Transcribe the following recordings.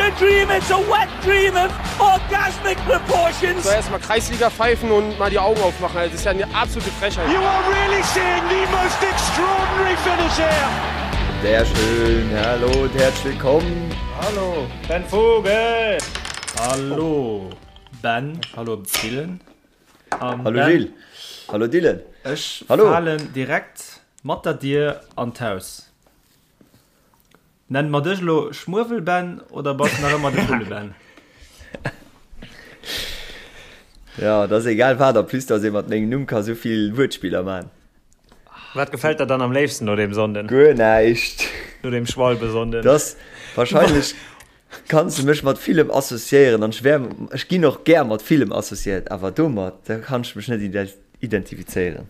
a dream, it's a wet dream of orgasmic proportions. Soll erstmal Kreisliga pfeifen und mal die Augen aufmachen. Also, das ist ja eine absolute Frechheit. You are really seeing the most extraordinary finish here. Sehr schön, hallo und herzlich willkommen. Hallo, Ben Vogel. Hallo Ben, hallo Dylan. Um, hallo ben, Gilles. Hallo Dylan. Ech hallo. falen direkt mat der Dier an d'Haus. Nennen mer dech elo Schmuewel-Ben oder bass nach ëmmer de Vulle-Ben? Ja, et ass egal wat, en plus dass ee mat mengem Numm ka sou vill Wuertspiller man. Wat gefält der dann am léifsten no deem Sonnden? Guer näischt. No deem Schwalbesonnden? Dass wahrscheinlech kanns de mech mat villem associéieren an ech wär, ech ginn och gär mat villem associéiert, awer domat, da kann ech mech net identifizéieren.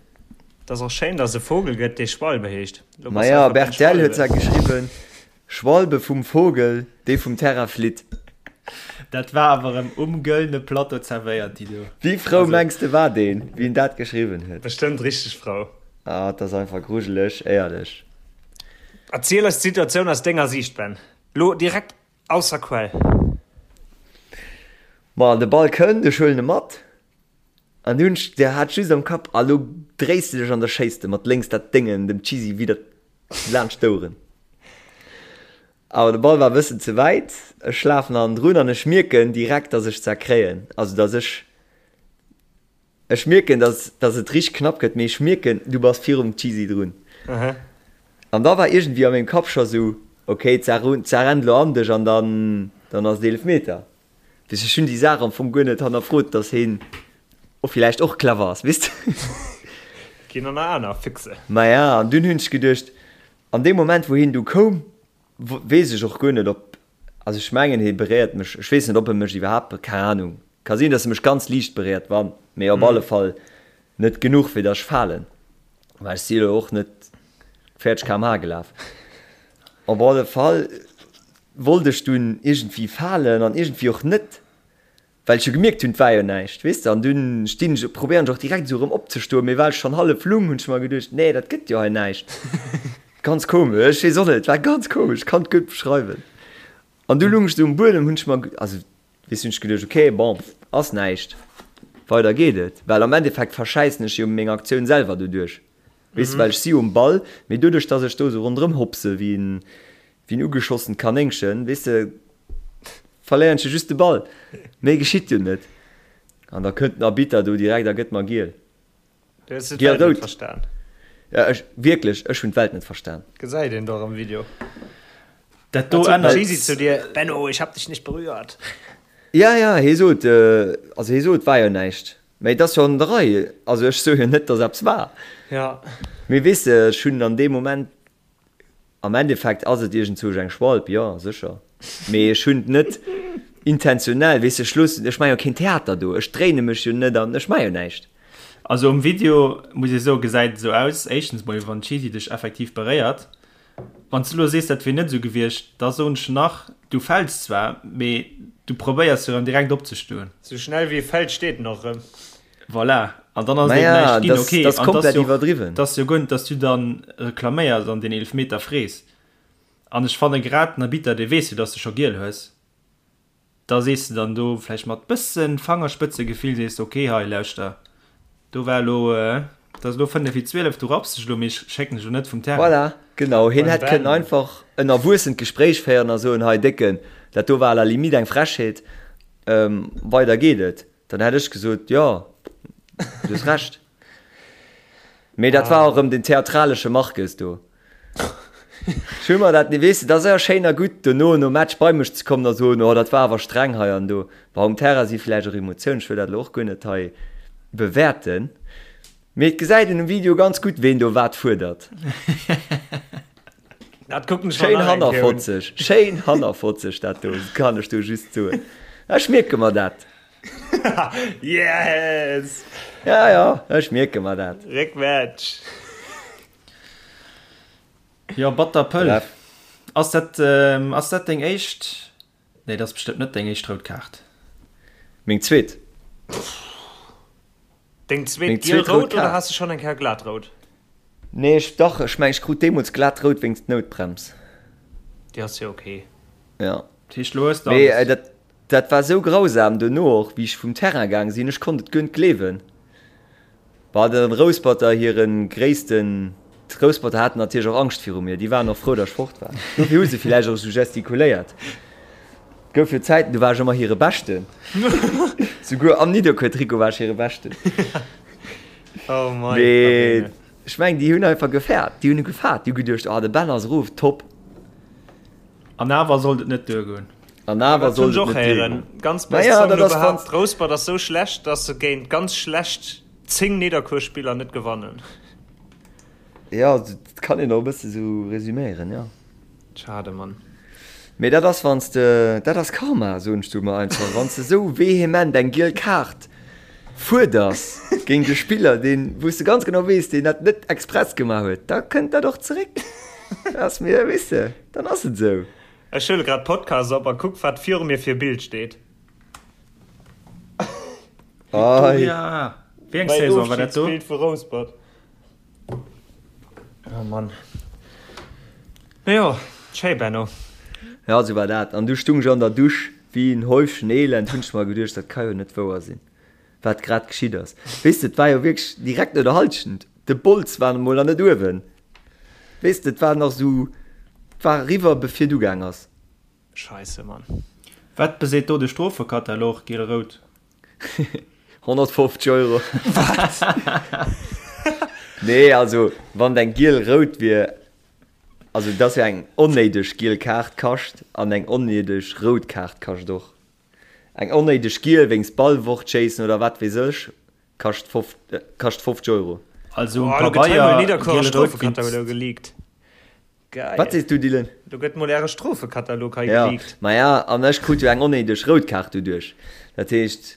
Et ass och schéin, dass et e Vogel gëtt, dee Schwalbe heescht. Lo bass du Maja, einfach Ben Bertell huet zwar geschriwwen, Schwalbe vum Vogel, dee vum Terrain flitt. Dat war awer erëm um gëllene Plateau zerwéiert, déi do. Wéi frou Also. mengs de war deen, wéi en dat geschriwwen huet? Bestëmmt richteg frou. Ah, et ass einfach grujeleg, éierlech. Erziel eis d'Situatioun aus denger Siicht, Ben. Lo direkt aus der Quell. Ma de Ball kënnt, ech huelen e mat. An du hunn ech, der hat just am Kapp, a lo dréis de dech an da schéiss de mat lénks dat Déngen dem Cheesy widder laanscht d'Oueren. Awer de Ball war e bëssen ze wäit, ech lafen hannendrun an ech mierken direkt, dass ech zerkréien, also dass ech, ech mierken, dass, dass et richteg knapp gëtt, mee ech mierken, du bass virum Cheesy drun. An da war iergendwéi a mengem Kapp scho sou, ok, d'Saach rennt lo an dech an dann, dann ass et Eelefmeter. Weess ech hunn déi Saach am Fong guer net hannerfrot, dass heen och villäicht och clever ass, weess de. Ginn an aner Füchse. Maja, an dunn hunn ech geduecht, an deem Moment wou heen du koum, weess ech och guer net ob, also ech mengen hee beréiert mech, ech weess net ob e mech iwwerhaapt, keng Ahnung, ka sinn dass e mech ganz liicht beréiert, wann, mee op alle Fall net genuch fir dass ech falen, well ech si elo och net 40 km/h gelaf. Op alle Fall wollt ech dunn iergendwéi falen an iergendwéi och net, well ech jo gemierkt hunn, et war jo näischt, weess de. An dunn stinn ech, probéieren ech och direkt esou erëm opzestoen, mee well ech schonn hallef lung, hunn ech mer geduecht, nee, dat gëtt jo hei näischt. Ganz komesch, ech weess och net, et war ganz komesch, ech kann et guer net beschreiwen. An du lung ech esou um Buedem, hunn ech mer, also weess hunn ech geduecht, okay, bon, ass näischt, weider geet et, well am Endeffekt verschäissen ech jo meng Aktioun selwer doduerch. Weess de, well ech si jo um Ball, mee doduerch, dass ech do esou ronderëm hopse wéi en, wéi en ugeschossent Kanéngchen, weess de, verléieren ech jo just de Ball. Méi geschitt jo net. An da kënnt den Arbitter do direkt a gëtt mer giel. Du hues de d'Welt net verstan. Ja, ech, wierklech, ech hunn d'Welt net verstan. Gesäit een dach am Video. Dat do ännert. Wat sot den Cheesy zu dir? Benno, ich hab dich nicht berührt. Ja, ja, hie sot, also hie sot, war jo näischt. Mä et ass jo an der Rei. Also ech soe jo net, datt eppes war. Ja. Mee weess de, ech hunn an deem Moment, am Endeffekt ass et iergendzwousch eng Schwalb, jo, sécher. Mee ech hunn et net intentionell, weess de, ech loossen, ech maache jo keen Theater do, ech dréine mech jo net an ech maache jo näischt. Also um Video, muss ee soen, gesäit et esou aus, éischtens mol, wann d'Cheesy dech effektiv beréiert, Wann s du elo sees, dat wier net esou gewiescht, da soen ech nach, du fäls zwar, mee du probéiers jo erëm direkt opzestoen. Sou schnell wéi e fält, steet en och erëm. Voilà, an dann ass et eben Naja, näischt ginn. dat Okay, ass an 't ass komplett jo och, iwwerdriwwen. 't ass jo guer net, dass du dann reklaméiers an deen Eelefmeter frees. An ech fanne grad den Arbitter, dee weess jo, dass de scho giel hues. Da sees de dann do vläicht mat bëssen Fangerspëtzegefill sees de, ok hei lauschter, do war elo, et ass elo 5 vir 12, du rapps dech elo, mee ech schécken dech elo net vum Terrain. Voilà, genau, hien hätt kënnen einfach en erwuessent Gespréich féieren a soen, hei Décken, dat do war à la limite eng Frechheet, weider geet et. Dann hätt ech gesot, jo, du hues Recht. Mee dat war och erëm den theatralesche Marques do. Ech hu mer dat, weess de, dat ass jo schéin a gutt, dono nom Match bei mech ze kommen a soen, oh dat war awer streng hei an do. Bon, um Terrain si vläicht och Emotiounen, ech wëll dat elo och guer net hei bewäerten, mee et gesäit een um Video ganz gutt, ween do wat fuerdert. Dat kucken ech mer Schéin nach eng Kéier un. hannerfotzeg, schéin hannerfotzeg dat do, kann ech do just soen. Ech mierke mer dat. Yes! Ja, ja, ech mierke mer dat. Réckmatch! Jo, batter Pëll. Bref. Ass dat, ass dat deng éischt, nee, dat ass bestëmmt net deng éischt rout Kaart. Meng zweet. Deng zweet Meng zweet rout giel-rout oder Kaart. has de schonn eng Kéier glat rout? Nee, ech, dach, ech mengen, ech krut deemools glat rout wéinst Noutbrems. Déi ass jo ok. Ja. Dat heescht, lo hues de Mee alles. dat, dat war sou grausam dono och, wéi ech vum Terrain gaang sinn. Ech konnt et guer net gleewen. Bah, de Rousperter hiren gréissten, d'Rousperter haten natierlech och Angscht viru mir. Déi waren och frou, datt ech fort war. Dofir hu se villäicht och esou gestikuléiert. Et gouf jo Zäiten, do war ech ëmmer hire Beschten. Souguer am Nidderkuer-Trikot war ech hire Beschten. Oh mei, Mee Fabine. ech mengen, déi hunn einfach gefaart. Déi hunn gefaart. Déi hu geduecht, oh, de Ben ass erof, top. An awer sollt et net duergoen. An awer Dat hunn sollt ech et och net héieren. duergoen. Ganz best Naja, Song dat elo ass wann. behaapt, Rouspert ass sou schlecht, dass se géint ganz schlecht 10 Nidderkuer-Spiller net gewannen. Jo, dat kann een och e bësse sou resüméieren, jo. Schade, Mann. Mee dat ass wann s de, dat ass Karma, soen ech do emmer einfach, wann s de sou vehement eng giel Kaart fuerders géint e Spiller, deen, wou s de ganz genau weess, deen dat net express gemaach huet, da kënnt dat och zeréck. Dat ass mir, weess de, dann ass et esou. Ech huele grad Podcast op a kuck wat viru mir fir e Bild steet. Victoria! Wéi eng Saison war dat do? Mäin Ofschidsbild vu Rouspert. Oh Mann. No jo, schéi Benno. Ja, sou war dat. An du stung ech an der Dusch wéi en Häufchen Elend, hunn ech mer geduecht, dat ka jo net wouer sinn, wat grad geschitt ass. Weess de, et war jo wierklech direkt no der Halschent, de Bols war emol nach net uewen. Weess de, et war nach sou, et war eriwwer bevir et ugaang ass. Scheisse Mann. Wat beseet do de Strofekatalog, giel-rout? 150 Euro. Wat? Nee, also wann et eng giel-rout wier, also et ass jo eng onnéideg giel Kaart kascht an eng onnéideg rout Kaart kascht och. Eng onnéideg giel wéinst Ball fortschéissen oder wat weess ech kascht 50 Euro. Also um Oh, lo gëtt hei mol Pabeier Nidderkuerer giel-rout Strofekatalog wéinst. geleakt. Geil. Wat sees du, Dylan? Do gëtt mol äre Strofekatalog hei Ja, geleakt. maja, an ech krut jo eng onnéideg rout Kaart doduerch. Dat heescht,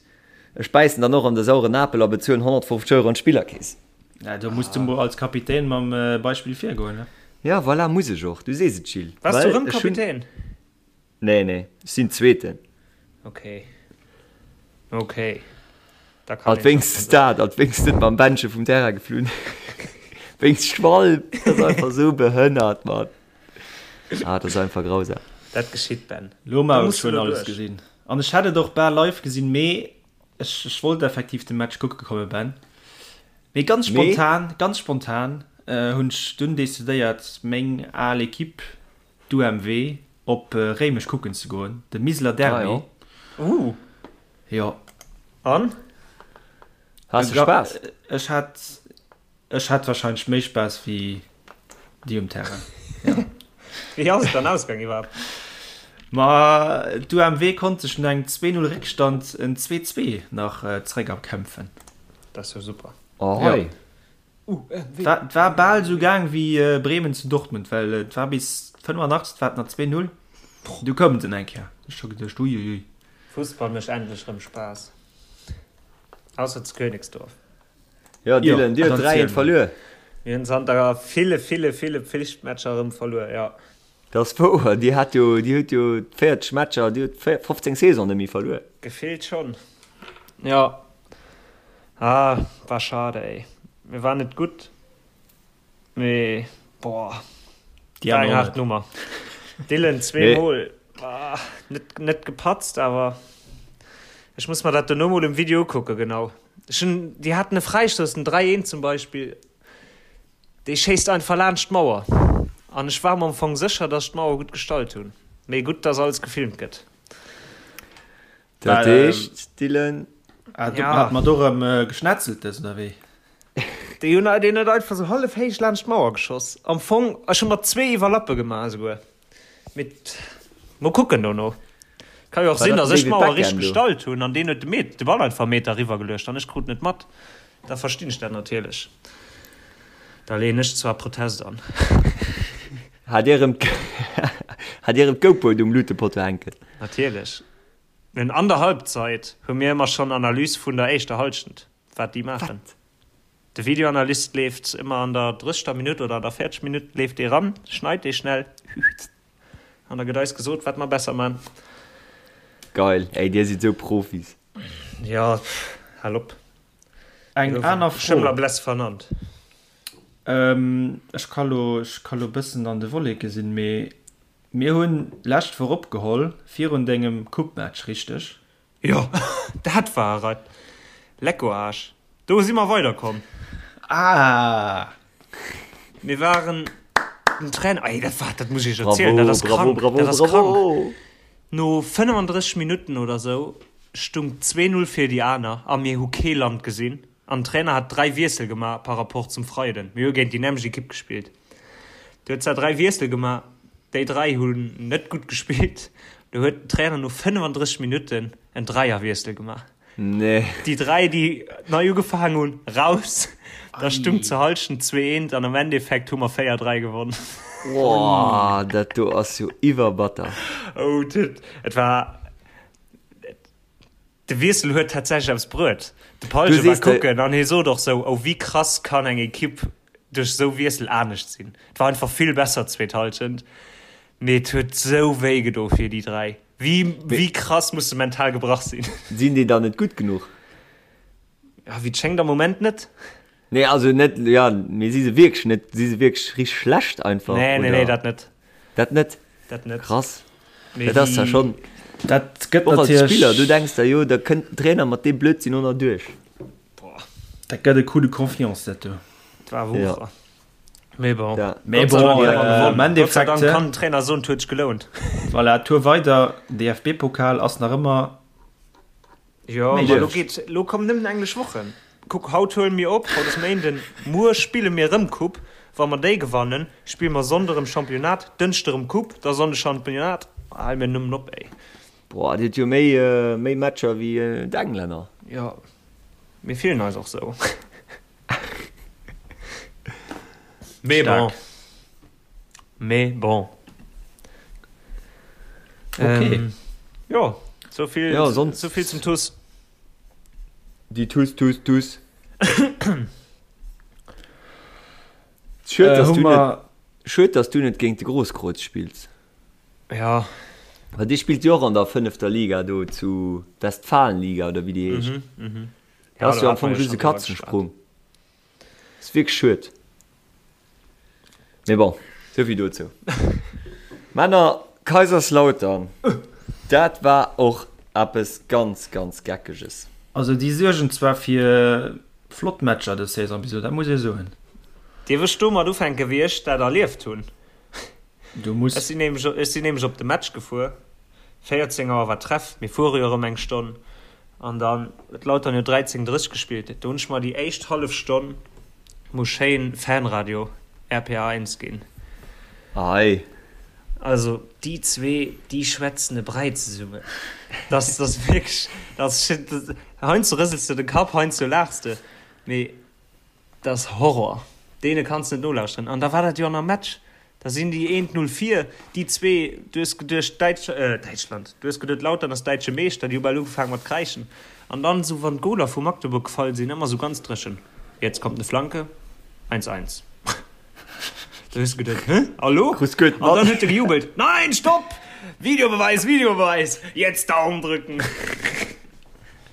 ech bäissen dann och an de sauren Apel a bezuelen 150 Euro an d'Spillerkeess. Ja, do muss du mol als Kapitän mam Beispill virgoen, ne? Ja, voilà, muss ech och. Du sees et, Gilles. Waars du Well rëm ech hunn. Kapitän? Nee, nee, ech sinn Zweeten. Ok. Ok. Da kann Alt wéinstens dat, alt wéinstens net mam Bändche vum Terrain geflunn. Wéinst Schwalb, dat ass einfach sou behënnert, Mann. Ah, dat ass einfach grausam. Dat geschitt, Ben. Lo Da mar muss ech du hunn elo alles duerch. gesinn. An ech hätt et och bal live gesinn, mee ech, ech wollt effektiv de Match kucke komme, Ben. Mee ganz Mee? spontan, ganz spontan hunn ech dunn decidéiert, meng al Equipe D'UMW op Réimech kucken ze goen, de Miseler Derby. Ah jo. Uh. Jo. An? Has de Spaass? Ech hat, ech hat wahrscheinlech méi Spaass wéi déi um Terrain. Ja. Wéi ass et dann ausgaang iwwerhaapt? Ma d'UMW konnt sech no engem 2, 0 Réckstand en 2, 2 nach zeréck erkämpfen. Dat ass jo super. Oh hei. Et war bal esou gaang wéi Bremen zu Dortmund, well et war bis 85 war et nach 2, 0, du koumen se eng Kéier. Ech scho geduecht uiuiui. Fussball mécht endlech rëm Spaass. Ausser zu Königsdorf. Jo Dylan, dir huet 3, 1 verluer. Mir hunn zanter ville, ville, ville Pflichtmatcher erëm verluer, jo. Dat ass wouer, dir hat jo, dir hutt jo 40 Matcher, dir hutt 15 Saison net méi verluer. Gefillt schonn, jo. Ah, war schade ey. Mir waren net gutt, mee boah, Déi war eng aner och haart net. Nummer. Dylan zweemol, ah, net, net gepatzt, awer ech muss mer dat dono mol um Video ukucken, genau. Ech hunn, déi haten e Fräistouss, den 3, 1 zum Beispill, dee schéisst einfach laanscht d'Mauer. An ech war mer am Fong sécher, dass ech d'Mauer gutt gestallt hunn. Mee gutt, dass alles gefilmt gëtt. Dat heescht, Dylan. Ah, do hat mer do rëm Geschnetzeltes, oder wéi? Déi hunn deen huet einfach sou hallef héich laanscht d'Mauer geschoss. Am Fong, ech hu mer zwee Iwwerlappe gemaach esouguer. Mee mol kucken dono. Ka jo och sinn, datt ech d'Mauer richteg gestallt hunn an deen huet de Met, de Ball einfach e Meter eriwwer geluecht an ech krut net mat. Da verstinn ech dat natierlech. Da leeën ech zwar Protest an. Hat Dir erëm hat Dir erëm d'GoPro um Lutepotto hänken? Natierlech. Mir hunn an der Halbzeit hu mir ëmmer schonn Analys vun der éischter Halschent, wat déi maachen. De Videoanalyst leeft ëmmer an der 30. Minutt oder an der 40. Minutt leeft dee ran, schneit dee schnell an da gëtt eis gesot, wat mer besser man. Geil, ey, dir sidd sou Profis. Jo, hal op. Eng aner Fro. Schëmmler Bless vernannt. Ech ka lo, ech ka lo bëssen an de Wolleke sinn, mee. Mir hunn lescht Woch opgeholl virun dengem Coupe-Match, richteg? Jo, dat war et. Lecko Aasch. Do si mer weiderkomm. Ah! Mir waren den Trainer, ey, dat war, dat muss ech iech erzielen, dat ass krank, Bravo, dat ass bravo, krank. bravo! No 35 Minutten oder sou stung 2, 0 fir déi aner a mir hu kee Land gesinn an den Trainer hat 3 Wiessel gemaach par rapport zum Freiden. Mir hu géint déi nämmlecht Ekipp gespillt. Du huet zwar 3 Wiessel gemaach, déi 3 hunn net gutt gespillt. Du huet den Trainer no 35 Minutten en Dräierwiessel gemaach. Nee. Déi 3, déi nei ugefaangen hunn, raus. Da stung zur Hallschent 2, 1 an am Endeffekt hu mer 4, 3 gewonnen. Boah, dat do ass jo iwwerbatter. Oh, dat, et war. De Wiessel huet tatsächlech eppes bruet. De Palge war kucken an hie sot och sou, oh wéi krass kann eng Ekipp duerch esou Wiessel anescht sinn. Et war einfach vill besser d'zweet Hallschent, mee et huet sou wéi gedo fir déi 3. Wéi wéi krass muss de mental gebrach sinn. Sinn déi dann net gutt genuch? Ja, wéi et schéngt am Moment net. Nee, also net, ja, mee si se wierklech net, si se wierklech richteg schlecht einfach? Nee, nee, nee, dat net. Dat net? Dat net. Krass. Dat ass ja schonn. Dat gëtt Och als natierlech. Spiller, du denks der jo, da kënnt den Trainer mat deem Blödsinn och nach duerch. Boah. Dat gëtt e Coup de confiance, dat do. Dat war Wucher. Ja. Mee bon. Ja. Mee Gott sei bon, Dank hu mer am gewonnen. Gott sei Endeffekt, Dank kann den Trainer soen, et huet sech gelount. Voilà, Tour weider, DFB-Pokal ass nach ëmmer Jo, ma lo geet, lo kommen nëmmen englesch Wochen. Kuck, haut huele mir op, haut ass Méinden, muer spille mir erëm Coupe. Wa mer déi gewannen, spille mer Sonnde erëm Championnat, Dënschde erëm Coupe, da Sonnde Championnat. Hal mir nëmmen op, ey. Boah, dir hutt jo méi, méi Matcher wéi d'Englänner. Jo, mir fillen eis och sou. Mee bon. Mee bon. Okay. Ähm, jo, sou vill, Ja, sonst- sou vill zum TuS. Déi TuS, TuS, TuS. Schued, Äh, dass hu du net, mer schued, dass du net géint de Grosskreutz spills. Ja. Well dee spillt jo och an der fënnefter Liga do zu Westfalenliga oder wéi déi heescht. Mhm, mhm. Dat ass Ja, jo do am hat Fong mer jo just e schonn driwwer geschwat. Katzensprung. Ass wierklech schued. Mee bon, souvill dozou. Männer, Kaiserslautern, dat war och eppes ganz, ganz Geckeges. Also déi suergen zwar fir flott Matcher dës Saison bis elo, dat muss ee soen. Dierf ech domat ufänken, wéi ech dat erlieft hunn? Du muss. Ech sinn nämlech, ech sinn nämlech op de Match gefuer, 14 Auer war Treff, mir fuere jo erëm eng Stonn, an dann huet Lautern jo 13:30 gespillt. Do hunn ech mer déi éischt hallef Stonn Muss schéin Fanradio RPA 1 ginn. Ei. Also déi zwee déi schwätzen e Bräi zesummen. Dat ass wierklech, dat ass, heiansdo rësels de de Kapp, heiansdo laachs de, mee dat ass Horror. Deene kanns de net nolauschteren. An da war dat jo an am Match. Da sinn déi eent 0 vir, déi zwee, du hues geduecht Däitsch, Däitschland, du hues geduet Lautern ass däitsche Meeschter, déi hu bal ugefaangen mat kräischen. An dann esou wann d'Goler vu Magdeburg gefall sinn, ëmmer esou ganz dréchen, Jetzt kommt eine Flanke, eins, eins. Da hues du geduet, Hä, a lo? Krus guet An dann mat. huet e gejubelt, Nein, stopp! Videobeweis, Videobeweis, jetzt Daumen drücken!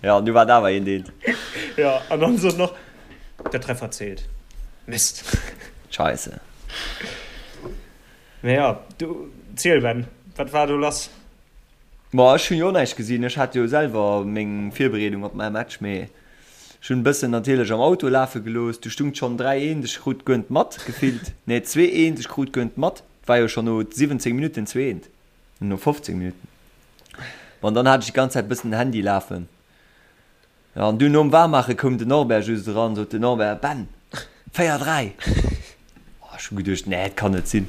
Ja, an du war et awer eent, eent. Ja, an dann sot en och, Der Treffer zählt. Mist. Scheisse. Mee jo, du, ziel Ben, wat war do lass? Ma ech hunn jo och näischt gesinn, ech hat jo selwer meng Virbereedung op mäi Match, mee ech hunn e bëssen natierlech am Auto lafe gelooss. Du stung et schonn 3, 1, ech krut guer net mat, gefillt, nee 2, 1, ech krut guer net mat, et war jo schonn no 17 Minutten 2, 1, no 15 Minutten. Bon, dann hat ech déi ganz Zäit e bëssen den Handy lafen. Jo, an dunn nom Waarmaache koum den Norbert just eran, sot den Norbert, Ben, 4, 3! Oh, ech hu geduecht, nee, et kann net sinn.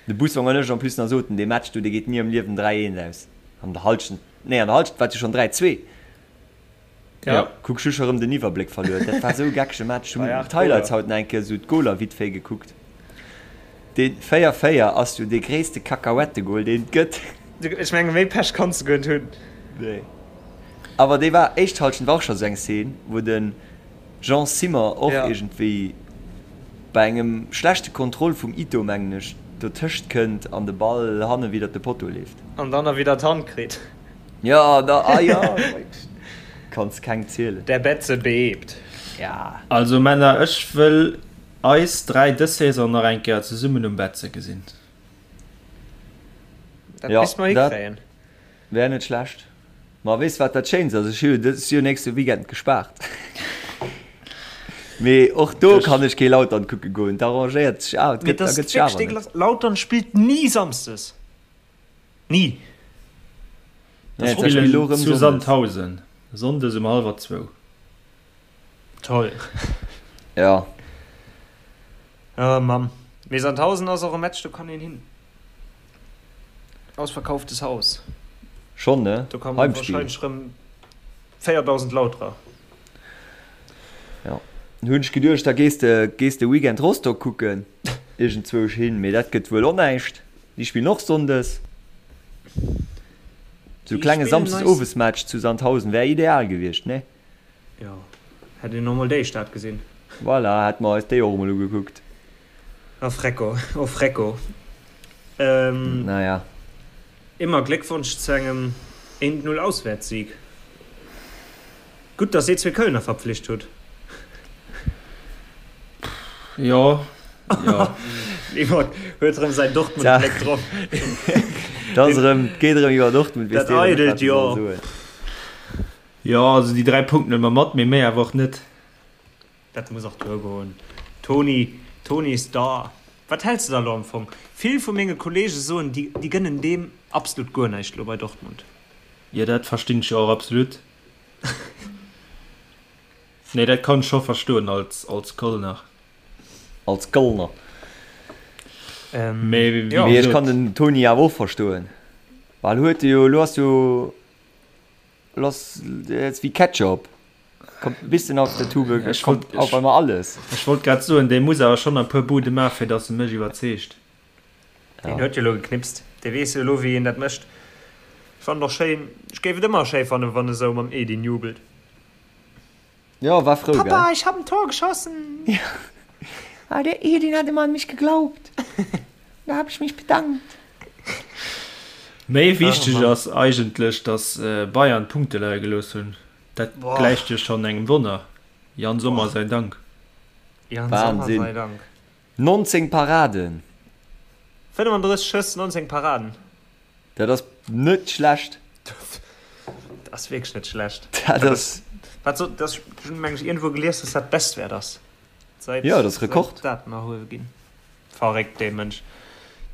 De Bussong an ech en plus nach soten, dee Match do, dee geet ni am Liewen 3, 1 aus. An der Halschent, nee, an der Halschent war et jo schonn 3, 2. Ja. Kuck, ech hu scho rëm den Iwwerbléck verluer. Dat war esou e geckege Match. Ech Bei hunn 8 d'Highlights Goler. haut nach eng Kéier esou d'Goler vite fait gekuckt. Dee 4, 4 ass jo dee gréisste Kakahuettegol, deen et gëtt. Ech menge méi Pech kanns de guer net hunn. Nee. Awer déi war éischt Halschent war och scho sou eng Szene, wou de Jean Simmer och Ja. iergendwéi bei engem schlechte Kontroll vum Ito, mengen ech, dotëscht kënnt an de Ball hanne widder de Potto leeft. An dann nach widder d'Hand kritt. Ja, da, ah ja, kanns keng zielen. Der Betze bebt. Ja. Also Männer, ech wëll. Eis 3 dës Saison nach eng Kéier zesummen um Betze gesinn. Dat misst mer hikréien. Wär net schlecht. Ma weess wat dat Schéinst ass? Ech hu jo dës jo nächste Weekend gespaart. Mee och do kann ech kee Lautern kucke goen. Dat arrangéiert sech awer, et gëtt, da gëtt sech awer net. Lautern spillt ni samsdes. Ni. Nee, dat spillt elo erëm zu Sandhausen, sonndes um hallwer zwou. Toll. Ja. Oh Mann. Mee Sandhausen ass och e Match, do kann een hin. Ausverkauftes Haus. Schonn, ne? Do kommen wahrscheinlech rëm 4.000 Lauterer. Ja. Hunn ech geduecht, da gees de, gees de Weekend Rostock kucken, iergendzwousch hin, mee dat gëtt wuel och näischt. Déi spillen och sonndes. Sou klenge Samsdes-Owes-Match zu Sandhausen wär ideal gewiescht, ne? Jo, hätt een och mol déi Stad gesinn. Voilà, hätte mer eis déi och emol ugekuckt. Oh Frecko, oh Frecko. Naja. Immer Gléckwonsch zu engem 1-0 Auswäertssieg. Gutt, dass dir zwee Kölner verpflicht hutt. Jo, jo. Yvonne huet erëm säin Dortmund-Bléck drop. Dat ass erëm, et geet erëm iwwer Dortmund, weess deen net, wat e soll soen. Jo, also déi 3 Punkten huele mer mat, mee méi awer och net. Dat muss och duergoen. Toni, Toni is da. Wat häls de da lo am Fong? Vill vu menge Kollege soen, déi, déi gënnen deem absolut guer näischt lo bei Dortmund. Jo, dat verstinn ech jo och absolut. Nee, dat kann ech scho verstoen als, als Kölner. Als Kölner. Ähm, Mee wéi jo. Mee ech kann den Toni awer och verstoen, well huet e jo, elo ass jo, elo ass et wéi Ketchup. Kommt e bisschen aus der Tube, Ech wollt, kommt auf einmal alles. Ech wollt grad soen, dee muss awer schonn e puer Bude maachen, fir datt e mech iwwerzeegt. Deen huet jo elo geknipst, dee weess jo elo wéi een dat mécht. Ech fannen och schéin, ech géif et ëmmer schéi fannen, wann e sou mam Edin jubelt. Jo, war frou, gell? Papa, ich hab en Tor geschossen! Ja, ah, der Edin hat immer an mich geglaubt, da hab ich mich bedankt. Méi wichteg ass eigentlech, datt Bayern Punkte leie gelooss hunn. Dat gläicht jo schonn engem Wonner. Yann Sommer sei Dank. Yann Sommer Wahnsinn. sei Dank. 19 Paraden! 35 Schëss, 19 Paraden. Dat ass net schlecht. Dat ass wierklech net schlecht. Dat ass. Wat soll, dat, ech hunn meng ech iergendwou gelies, dass dat Bestwäert ass. Seit, Jo, dat ass Rekord. seit Daten erhuewe ginn. Verréckt, dee Mënsch.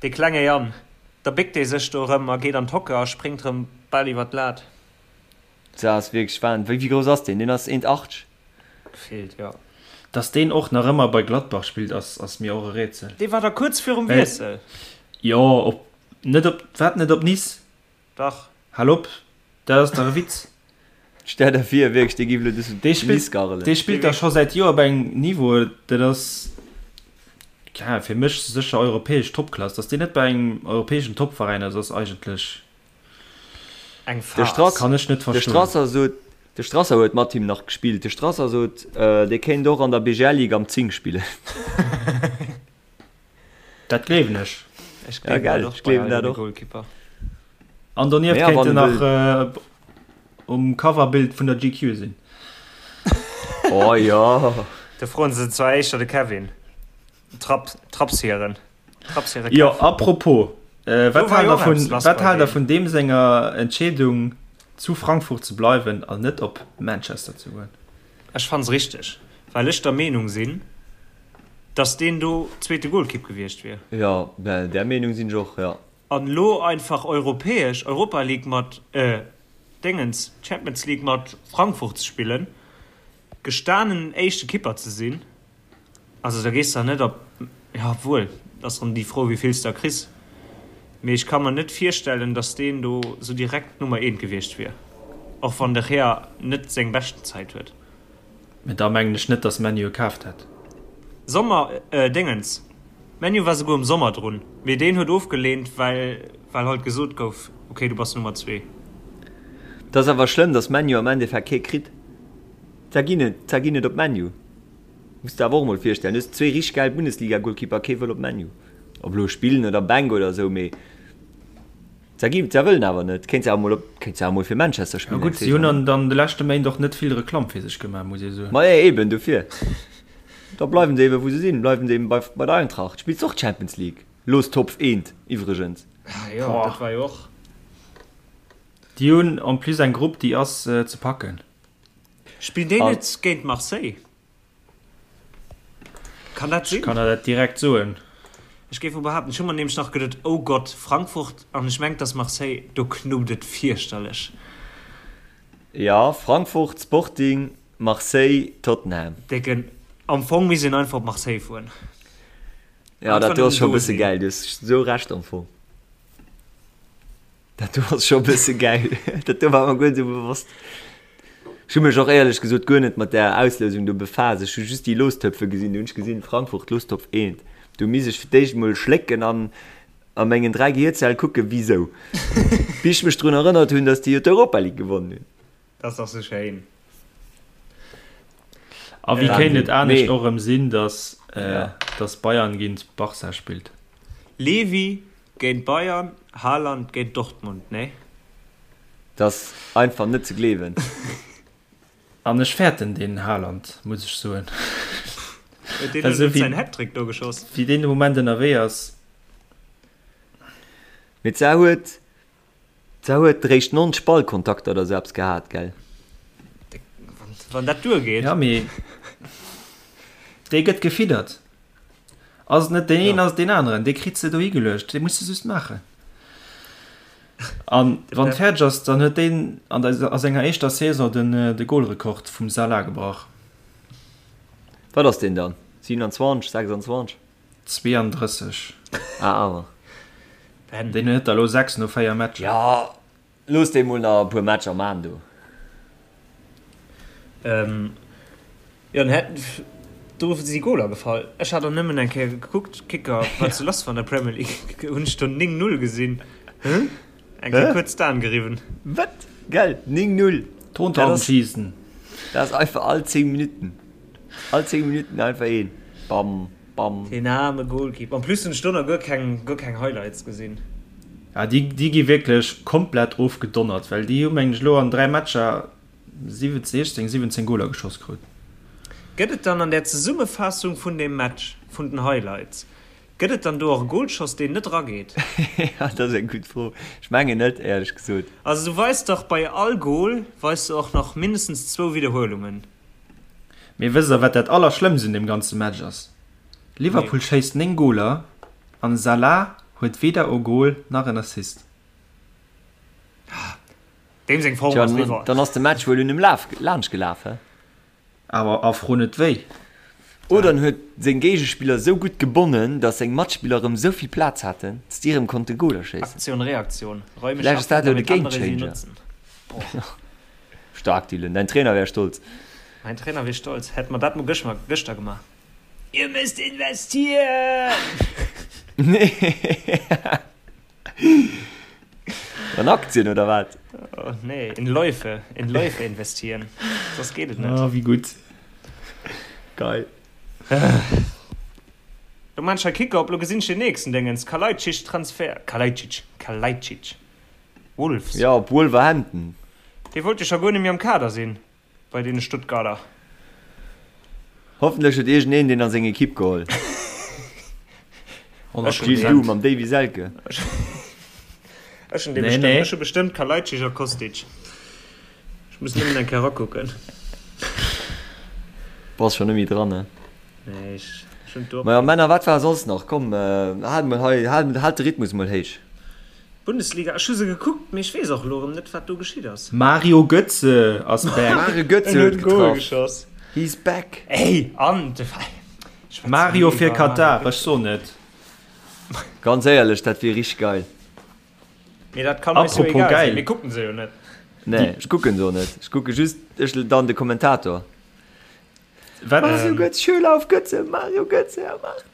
Dee klenge Yann. Da béckt dee sech do erëm a geet an d'Hocke a spréngt erëm bal iwwer d'Lat. Dat ass wierklech Wahn. Wéi grouss ass deen? Deen ass 1,80. Gefeelt, jo. Dass deen och nach ëmmer bei Gladbach spillt ass ass mir och e Rätsel. Dee war da kuerz virum Wiessel. Jo, op net op wat net op Nice? Dach. Hal op, dat ass dach e Witz. Stell der vir wierklech dee giff elo duerch Dee spillt Nice garrelen. Dee spillt dach scho säit Joer op engem Niveau, dat ass ja fir mech sécher europäesch Topklass. Dass deen net bei engem europäeschen Topveräin ass, ass eigentlech. Eng De Farce. Strass, Kann ech net de verstoen. Strasser sot, de Strasser huet mat him nach gespillt. De Strasser sot, dee kéint och an der BGL Ligue am 10 spillen. Dat gleewen ech. Ech Ja, gleewen gell, dat och ech bei gleewen all dat deene och. Goalkeeper. An donieft Naja, kéint wann en e nach wëll. um Coverbild vun der GQ sinn. Oh jo. Do froen se zwar éischter de Kevin. Trapp, Trapshieren. Trapshiere Jo, Kev. apropos, Do wat war haalt jo der och vun, eppes lass wat bei haalt der deem. vun deem senger Entscheedung zu Frankfurt ze bleiwen an net op Manchester ze goen? Ech fann se richteg, well ech der Meenung sinn, dass deen do zweete Golkipp gewiescht wier. Jo, där Meenung sinn ech och, jo. An elo einfach europäesch, Europa League mat, äh, Déngens, Champions League mat Frankfurt ze spillen, gestanen éischte Kipper ze sinn, Also da gees der net op, jo obwuel, et ass rëm déi Fro wéi vill s der kriss, mee ech ka mer net virstellen, datt deen do sou direkt d'Nummer eent gewiescht wier, och wann de Gea net seng beschten Zäit huet. Mee da mengen ech net, datt ManU e kaaft hätt. Sommer, Déngens, ManU war souguer am Sommer drun, mee deen huet ofgeleent, well well halt gesot gouf, ok du bass Nummer zwee. Et ass awer schlëmm, datt ManU am Endeffekt kee kritt. Zwar ginn et, zwar ginn et op ManU. Muss der awer och mol virstellen, du hues zwee richteg gäil Bundesliga-Golkeeper, kee wëll op ManU. Ob elo spillen oder Bänk oder esou, mee se gi, se wëllen awer net. Kéint se awer mol op, kéint se awer mol fir Manchester Ja spillen gutt, eng si hunn Saison. an an de leschte Méint och net vill Reklamm fir sech gemaach, muss ee soen. Ma jo, eben dofir. Da bleiwen se eben wou se sinn, bleiwen se eben bei bei der Eintracht. Spills och Champions League, Lostopf eent iwwregens. Ah jo, dat war jo och. Déi hunn en plus eng Grupp, déi ass ze packen. Spillen déi net géint Marseille? Kann dat sinn? Ech kann der dat direkt soen. Ech géif mol behaapten, ech hu mer nämlech nach geduet, oh Gott, Frankfurt, an ech mengt, dass Marseille, do knuppt et fierchterlech. Jo, Frankfurt, Sporting, Marseille, Tottenham. Décken, am Fong misst een einfach op Marseille fueren. Jo, dat do ass scho e bësse gäil, du hues esou Recht am Fong. Dat do ass scho e bësse gäil. Dat do war mer guer net esou bewosst. Ech hu mech och éierlech gesot guer net mat där Auslousung do befaasst. Ech hu just déi Lostöpfe gesinn. Do hunn ech gesinn, Frankfurt, Lostopf eent. Do misst ech fir d'éischt emol schlécken an a mengen 3 Gehierzelle kucken, wisou. Bis ech mech drun erënnert hunn, datt déi jo d'Europa League gewonnen hunn. Dat ass dach sou schéin. A wéi kéint et anescht och erëm sinn, datt datt Bayern géint Barca spillt? Lewy géint Bayern, Haaland géint Dortmund, nee? Dat ass einfach net ze gleewen. An ech fäerten deen Haaland, muss ech soen. Huet deen elo net säin Hattrick do geschoss? Wéi deen de Moment ënnerwee ass. Mee d'Sar huet D'Sar huet réischt 90 Ballkontakter oder sou eppes gehat, gell? Wann dat duergeet. Ja, mee dee gëtt gefiddert. Ass et net deen een, ass et deen aneren. Dee kritt se dohi geluecht. Dee muss se just maachen. An wann et fäerdeg ass, dann huet deen an der, a senger éischter Saison den, de Golrekord vum Salah gebrach. Wat ass deen dann? 27, 26? 32. Ah, awer. Deen huet der elo 6 no 4 Matcher. Jo, looss dee mol nach e puer Matcher man do. Jo, den hätt, do si Goler gefall. Ech hat och nëmmen eng Kéier gekuckt, Kicker, wat sou lass war an der Premier League. Hunn ech do 9, 0 gesinn. Eng Kéier kuerz d'Aen geriwwen. Wat? Gell, 9, 0. Tontaubenschießen. Dat ass einfach all 10 Minutten. All 10 Minutten einfach een. Bam, bam. Deen aarme Goalkeeper. En plus hunn ech do nach guer keng, guer keng Highlights gesinn. Ja, déi, déi gi wierklech komplett ofgedonnert, well déi hu mengen ech elo an 3 Matcher 17, 16, 17 Goler geschoss krut. Gëtt et dann an der Zesummefaassung vun deem Match, vun den Highlights, gëtt et dann do och e Golschoss, deen net erageet? Ja, dat ass eng gutt Fro. Ech mengen net, éierlech gesot. Also du weis dach bei all Gol weis de och nach mindestens zwou Widderhuelungen. Mee wësst der wat dat allerschlëmmst un deem ganze Match ass? Liverpool schéisst 9 Goler an Salah huet weder o Goal nach en Assist. Deem seng Form ass eriwwer. Dann ass de Match wuel un em laanscht gelaf, he? Awer a fro net wéi. Oder en huet seng Géigespiller sou gutt gebonnen, datt seng Matspiller erëm sou vill Plaz haten, datt déi erëm konnte Goler schéissen. Aktion, Reaktion, Räume Vläicht ass schaffen, dat elo de damit andere sie Gamechanger. nutzen. Boah. Stark Dylan, däin Trainer wär stolz. Mäin Trainer wier stolz, hätt mer dat mol gëschter gemaach. Ihr müsst investieren! An Aktien oder wat? Oh, nee, in Läufe, in Läufe investieren. Soss geet et net. Oh, wéi gutt. Geil. Lo maan ech hei Kicker op, lo gesinn ech den nächsten Déngens, Kalajdzic Transfer, Kalajdzic, Kalajdzic. Wolves. Jo, op Wolverhampton. Dee wollt jo scho guer net méi am Kader sinn bei deene Stuttgarter. Hoffentlech huet iergendeen deen a seng Ekipp geholl. Gilles, du mam Davy Selke. Ech hunn dee bestëmmt. Ech hu bestëmmt Kalajdzic a Kostic. Ech muss nëmmen eng Kéier erakucken. Bass scho net méi dran, ne? Nee, ech hunn d'Uhr. Majo Männer, wat war soss nach? Komm, haalt mol hei, haalt de Rhythmus mol héich. Bundesliga, ech hu se gekuckt, mee ech weess och elo erëm net, wat do geschitt ass. Mario Götze ass back. Mario Götze En huet huet e Goal getraff. geschoss. He's back. Ey, an de schwätz Mario ni fir iwwer Mario Katar, ech Götze. soen et. Ganz éierlech, dat wier richteg geil. Mee dat kann eis jo Apropos egal sinn, geil. mir kucken se jo net. Nee, ech kucken se och net. Ech kucke just ech dann de Kommentator. Wat? Mario Götze, Schüler auf Götze, Mario Götze, er macht.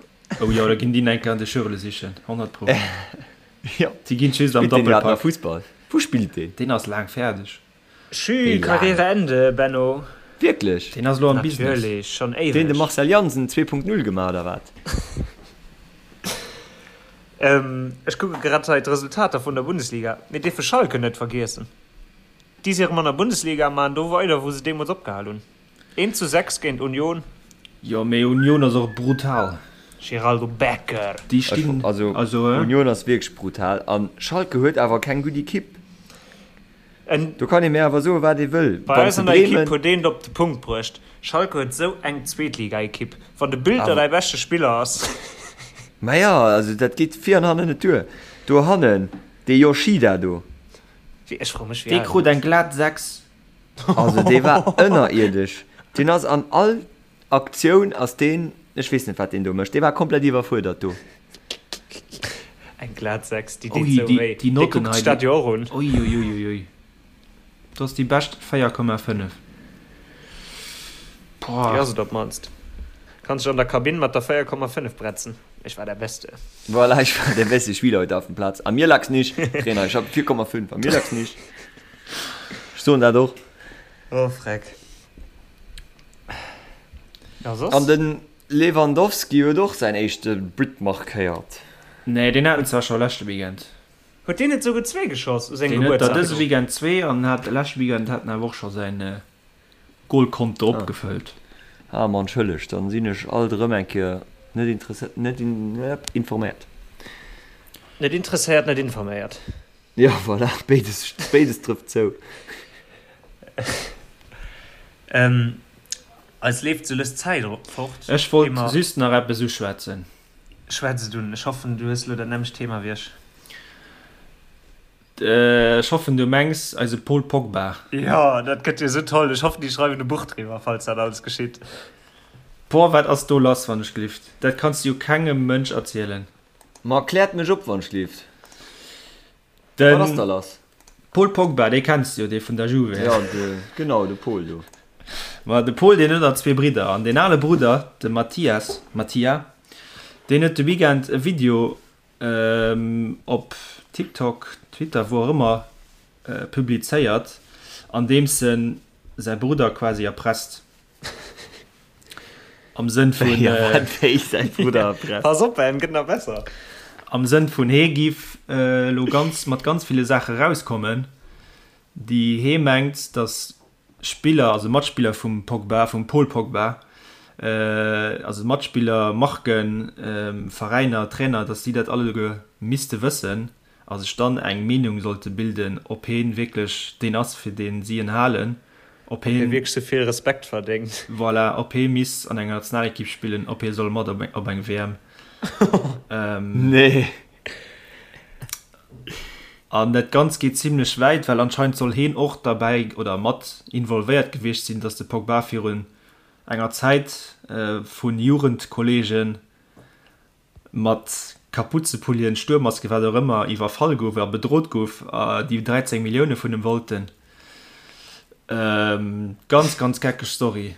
Oh jo, da ginn déi enker an de Schürele sichen, 100 pro. Jo. Déi ginn just am Spillt deen iwwerhaapt nach Doppelpack. Fussball? Wou spillt deen? Deen ass laang fäerdeg. Schü, Karriere Ende, Benno. Wierklech? Deen ass elo am Business. Natierlech, schonn Deen de éiweg. Marcel Jansen 2.0 gemaach oder wat? Ech kucke grad hei d'Resultater vun der Bundesliga. Mir dierfe Schalke net vergiessen. Déi si erëm an der Bundesliga a maachen do weider, wou se deemools opgehal hunn. 1 zu 6 géint Union. Jo, mee Union ass och brutal. Geraldo Becker. Déi stinn also, also Union ass wierklech brutal an Schalke huet awer keng gutt Ekipp. En Do kann ee mir awer soen, wat ee wëll. Bei Wann eis se an der Ekipp Bremen. huet een et op de Punkt bruecht, Schalke huet sou eng Zweetligaekipp. Wann de Bülter Awer. däi beschte Spiller ass. Maja, also dat geet vir an hannen net duer. Do hannen, dee Yoshida do. Wéi, ech froe mech, wéi Dee al en krut ass. eng glat 6. Also dee war ënnerierdesch. Deen ass an all Aktioun ass deen, ech weess net wat deen do mécht, dee war komplett iwwerfuerdert do. Eng glat 6, déi deet Ui, sou déi, wéi. déi Dee Notten kuckt hei, sech dat déi, jo och un. ui, ui, ui, ui, ui. Dat ass déi bescht 4,5. Déi Boah. ass et op d'mannst. Kanns dech an der Kabinn mat der 4,5 bretzen. Ich war der Beste. Voilà, ich war der beste Spieler heute auf dem Platz. An mir lag's nicht, Trainer, ich hab 4,5, an mir lag's nicht. Ech soen dat och. Oh, freck. Ja, soss? An den Lewandowski huet och säin éischte But markéiert. Nee, deen hat en zwar scho leschte Weekend. Huet deen net souguer zwee geschoss u sengem Deen huet der Gebuertsdag? dëse Weekend zwee an hat leschte Weekend hat en awer och scho säin Golkonto opgefëllt. Ah, ma entschëllegt, dann sinn ech alt erëm eng Kéier net interesséiert, net informéiert. Net interesséiert, net informéiert. Jo, voilà, béides, béides trëfft zou. Eis leeft sou lues d'Zäit fort. Ech wollt just nach eppes uschwätzen. Schwätz et un. Ech hoffen, du hues elo dat nämmlecht Thema wéi ech. Ech hoffen, du mengs eise Paul Pogba. Jo, dat gëtt jo sou toll. Ech hoffen, déi schreiwen e Buch driwwer, falls dat alles geschitt. Boah, wat ass do lass, wann ech glift? Dat kanns du jo kengem Mënsch erzielen. Ma kläert mech op, wann ech glift. Wat ass Den da lass? Paul Pogba, dee kenns de jo, dee vun der Juve. Ja, de, genau, de Paul do. Ma de Paul, deen huet nach zwee Bridder. An deen ale Brudder, de Mathias, Mattia, deen huet de Weekend e Video op TikTok, Twitter, wou och ëmmer, publizéiert, an deems en säi Brudder quasi erpresst. Am Sënn vun. Ja, wat wéi säi Brudder erpresst? Pass op, en gëtt nach besser. Am Sënn vun hee giff elo ganz mat ganz ville Saache rauskommen, déi hee mengt, datt Spiller, also Matspiller vum Pogba, vum Paul Pogba, also Matspiller, Marken, Veräiner, Trainer, datt si dat alleguer misste wëssen a sech dann eng Meenung sollte bilden, ob heen wierklech deen ass, fir deen si en halen, ob Ob hie heen, wierklech sou vill Respekt verdéngt. voilà, ob hee misst an enger Nationalekipp spillen, ob hee soll mat op op eng WM. Nee. An dat Ganzt geet zimlech wäit, well anscheinend soll heen och derbäi oder mat involvéiert gewiescht sinn, datt de Pogba virun enger Zäit vu Jugendkolleegen mat Kapuzepullien, Stuermmasken, wat och ëmmer, iwwerfall gouf a bedrot gouf, déi 13 Millioune vun em wollten. Ganz, ganz geckeg Story.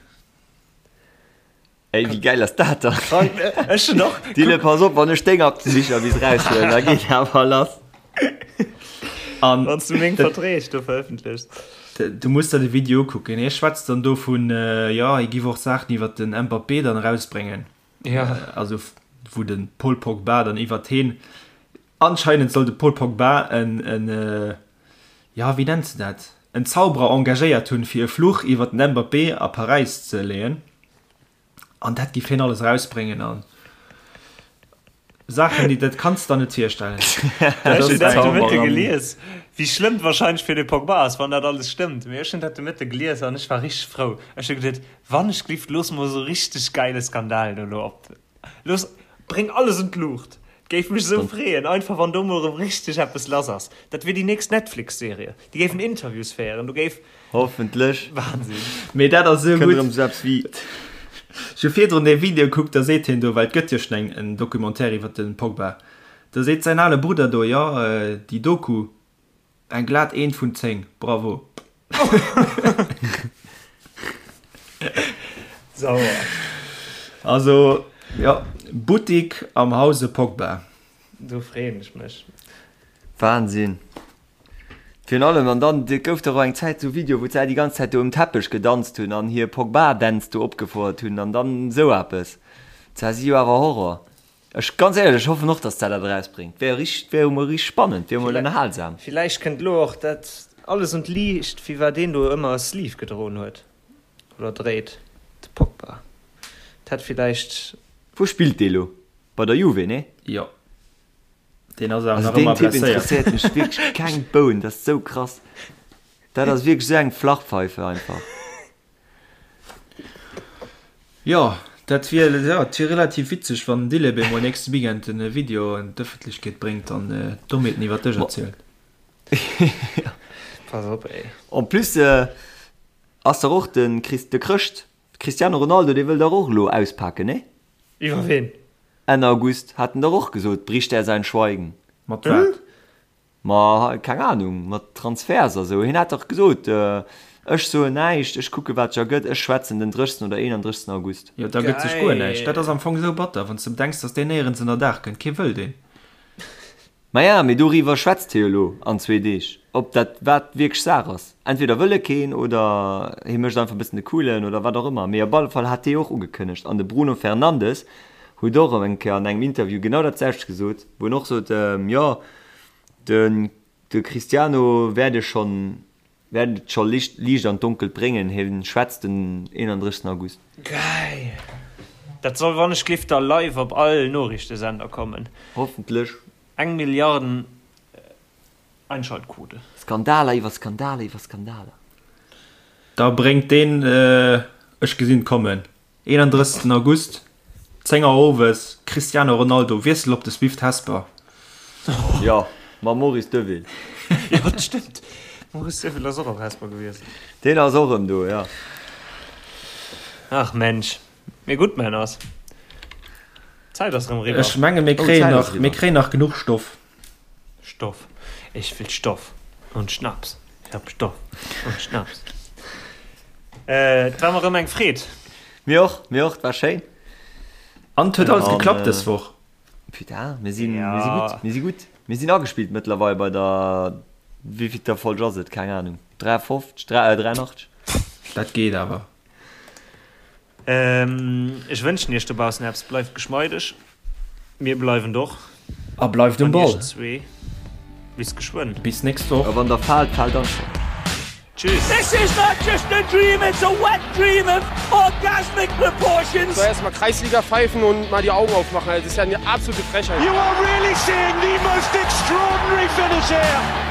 Ey, wéi gäil ass dat dann? Krank, ech hunn och. Dylan, pass op, wann ech deng Aktebicher bis raushuelen, da geet awer lass. An Wann s du meng Verträg do verëffentlechs. Du muss der de Video ukucken. Hie schwätzt dann do vun, jo, hie giff och Saachen iwwer den Mbappé dann erausbréngen. Ja. Also wou de Paul Pogba dann iwwert heen, anscheinend soll de Paul Pogba en, en, jo, wéi nenns de dat, en Zauberer engagéiert hunn, fir e Fluch iwwert den Mbappé a Paräis ze leeën. An dat giff hien alles erausbréngen an Saachen, déi, dat kanns de der net virstellen. Ech hunn dat de Mëtte gelies, wéi schlëmm et wahrscheinlech fir de Pogba ass, wann dat alles stëmmt. Mee ech hunn dat de Mëtte gelies an ech war richteg frou. Ech hu geduet, Wann ech glift, looss mol esou richteg geile Skandal do elo op. Looss, bréng alles un d'Luucht. Géif mech esou freeën, einfach wann do mol erëm richteg eppes lass ass. Dat wier déi nächst Netflix-Serie. Déi géifen Interviews féieren, do géif. Hoffentlech. Wahnsinn. Mee dat ass esou Kënnt gutt. erëm esou eppes wéi. Ech hu virdrun dee Video kuckt, da seet hien do, well et gëtt jo schonn eng en Documentaire iwwer de Pogba, da seet säin ale Brudder do, jo, déi Doku, Eng glat Eent vun 10, bravo! Sauer. Also jo, Buttik am Hause Pogba. Do freeën ech mech. Wahnsinn. Virun allem, an dann et gouf dach och eng Zäit sou Video wou se déi ganz Zäit do um Teppech gedanzt hunn an hir Pogba-Dänz do opgefouert hunn an dann sou eppes. Zwar si jo awer Horror. Ech, ganz éierlech, ech hoffen och, dass dat dat erausbréngt. Wär richt, wär jo mol richt spannend, wär mol ënnerhalsam. Villäicht kënnt elo och dat alles un d'Liicht, firwat deen do ëmmer e Sleeve gedroen huet, oder dréit, de Pogba. Dat hätt villäicht. Wou spillt dee lo? Bei der Juve, nee? Jo. Deen ass awer Also nach deen ëmmer Typ blesséiert. interesséiert mech wierklech keng Boun, dat ass sou krass. Dat ass wierklech sou eng Flachpfeife einfach. Jo, dat wier, jo, et wier relativ witzeg, wann den Dileb emol nächste Weekend en Video an d'Ëffentlechkeet bréngt an Dommheeten iwwer dech erzielt. Pass op, ey. En plus ass dach och de Chris, de Chrëscht, Cristiano Ronaldo, dee wëll dach och elo auspaken, nee? Iwwer ween? Enn August hat en dach och gesot, bricht er sein Schweigen. Mat wat? Ma keng Ahnung, mat Transferts a sou. Hien hat dach gesot, ech soen näischt, ech kucke wat sech ergëtt, ech schwätzen den 30. oder 31. August. Jo, da gëtt sech guer näischt. Dat ass am Fong esou batter, wann s de bedenks, datt deen néierens ënner Daach kënnt. Kee wëll deen. Maja, mee doriwwer schwätzt hie jo elo an zwee Deeg, ob dat wat wierklech Saach ass. Entweder wëll e keen oder hie mécht einfach e bëssen de Coolen oder wat och ëmmer. Mee op alle Fall hat hie och ugekënnegt an de Bruno Fernandes huet och eng Kéier an engem Interview genau dat selwecht gesot, wou en och sot, jo, de de Cristiano werde schon wäert et scho Liicht an d'Donkelt bréngen, hie schwätzt den 31 August. Geil! Dat soll wannechglift da live op all Noriichtesender kommen. Hoffentlech. Eng Milliarden Einschaltquote. Skandaler iwwer Skandaler iwwer Skandaler. Da bréngt deen, ech gesinn et kommen, 31 August, 10 Auer owes, Cristiano Ronaldo, Wiessel op de Swift Hesper. Jo, mam Maurice Deville. Jo, dat stëmmt. Maurice Deville ass och op Hesper gewiescht. Deen ass och erëm do, jo. Ach Mensch. Mee gutt, Männers. D'Zäit ass erëm eriwwer. Ech menge mir kréien nach, mir kréien nach genuch Stoff. Stoff. Ich will Stoff und Schnaps. Ich hab Stoff und Schnaps. Et war mer erëm eng Freed. Mir och, mir och, et war schéin. An et huet alles geklappt dës Woch. Putain, mir sinn, mir si gutt, mir si gutt. Mir sinn agespillt mëttlerweil bei der, wéivillter Folg ass et? Keng Ahnung, 53, 83? Dat geet awer. Ech wënschen iech dobaussen eppes, bleift geschmeideg, mir bleiwen et och. A bleift um An Ball. iech zwee bis geschwënn. Bis nächst Woch. A wann der faalt, faalt einfach. Tschüss. This is not just a dream, it's a wet dream of orgasmic proportions. Soll erstmal Kreisliga pfeifen und mal die Augen aufmachen, das ist ja eine absolute Frechheit. You are really seeing the most extraordinary finish here.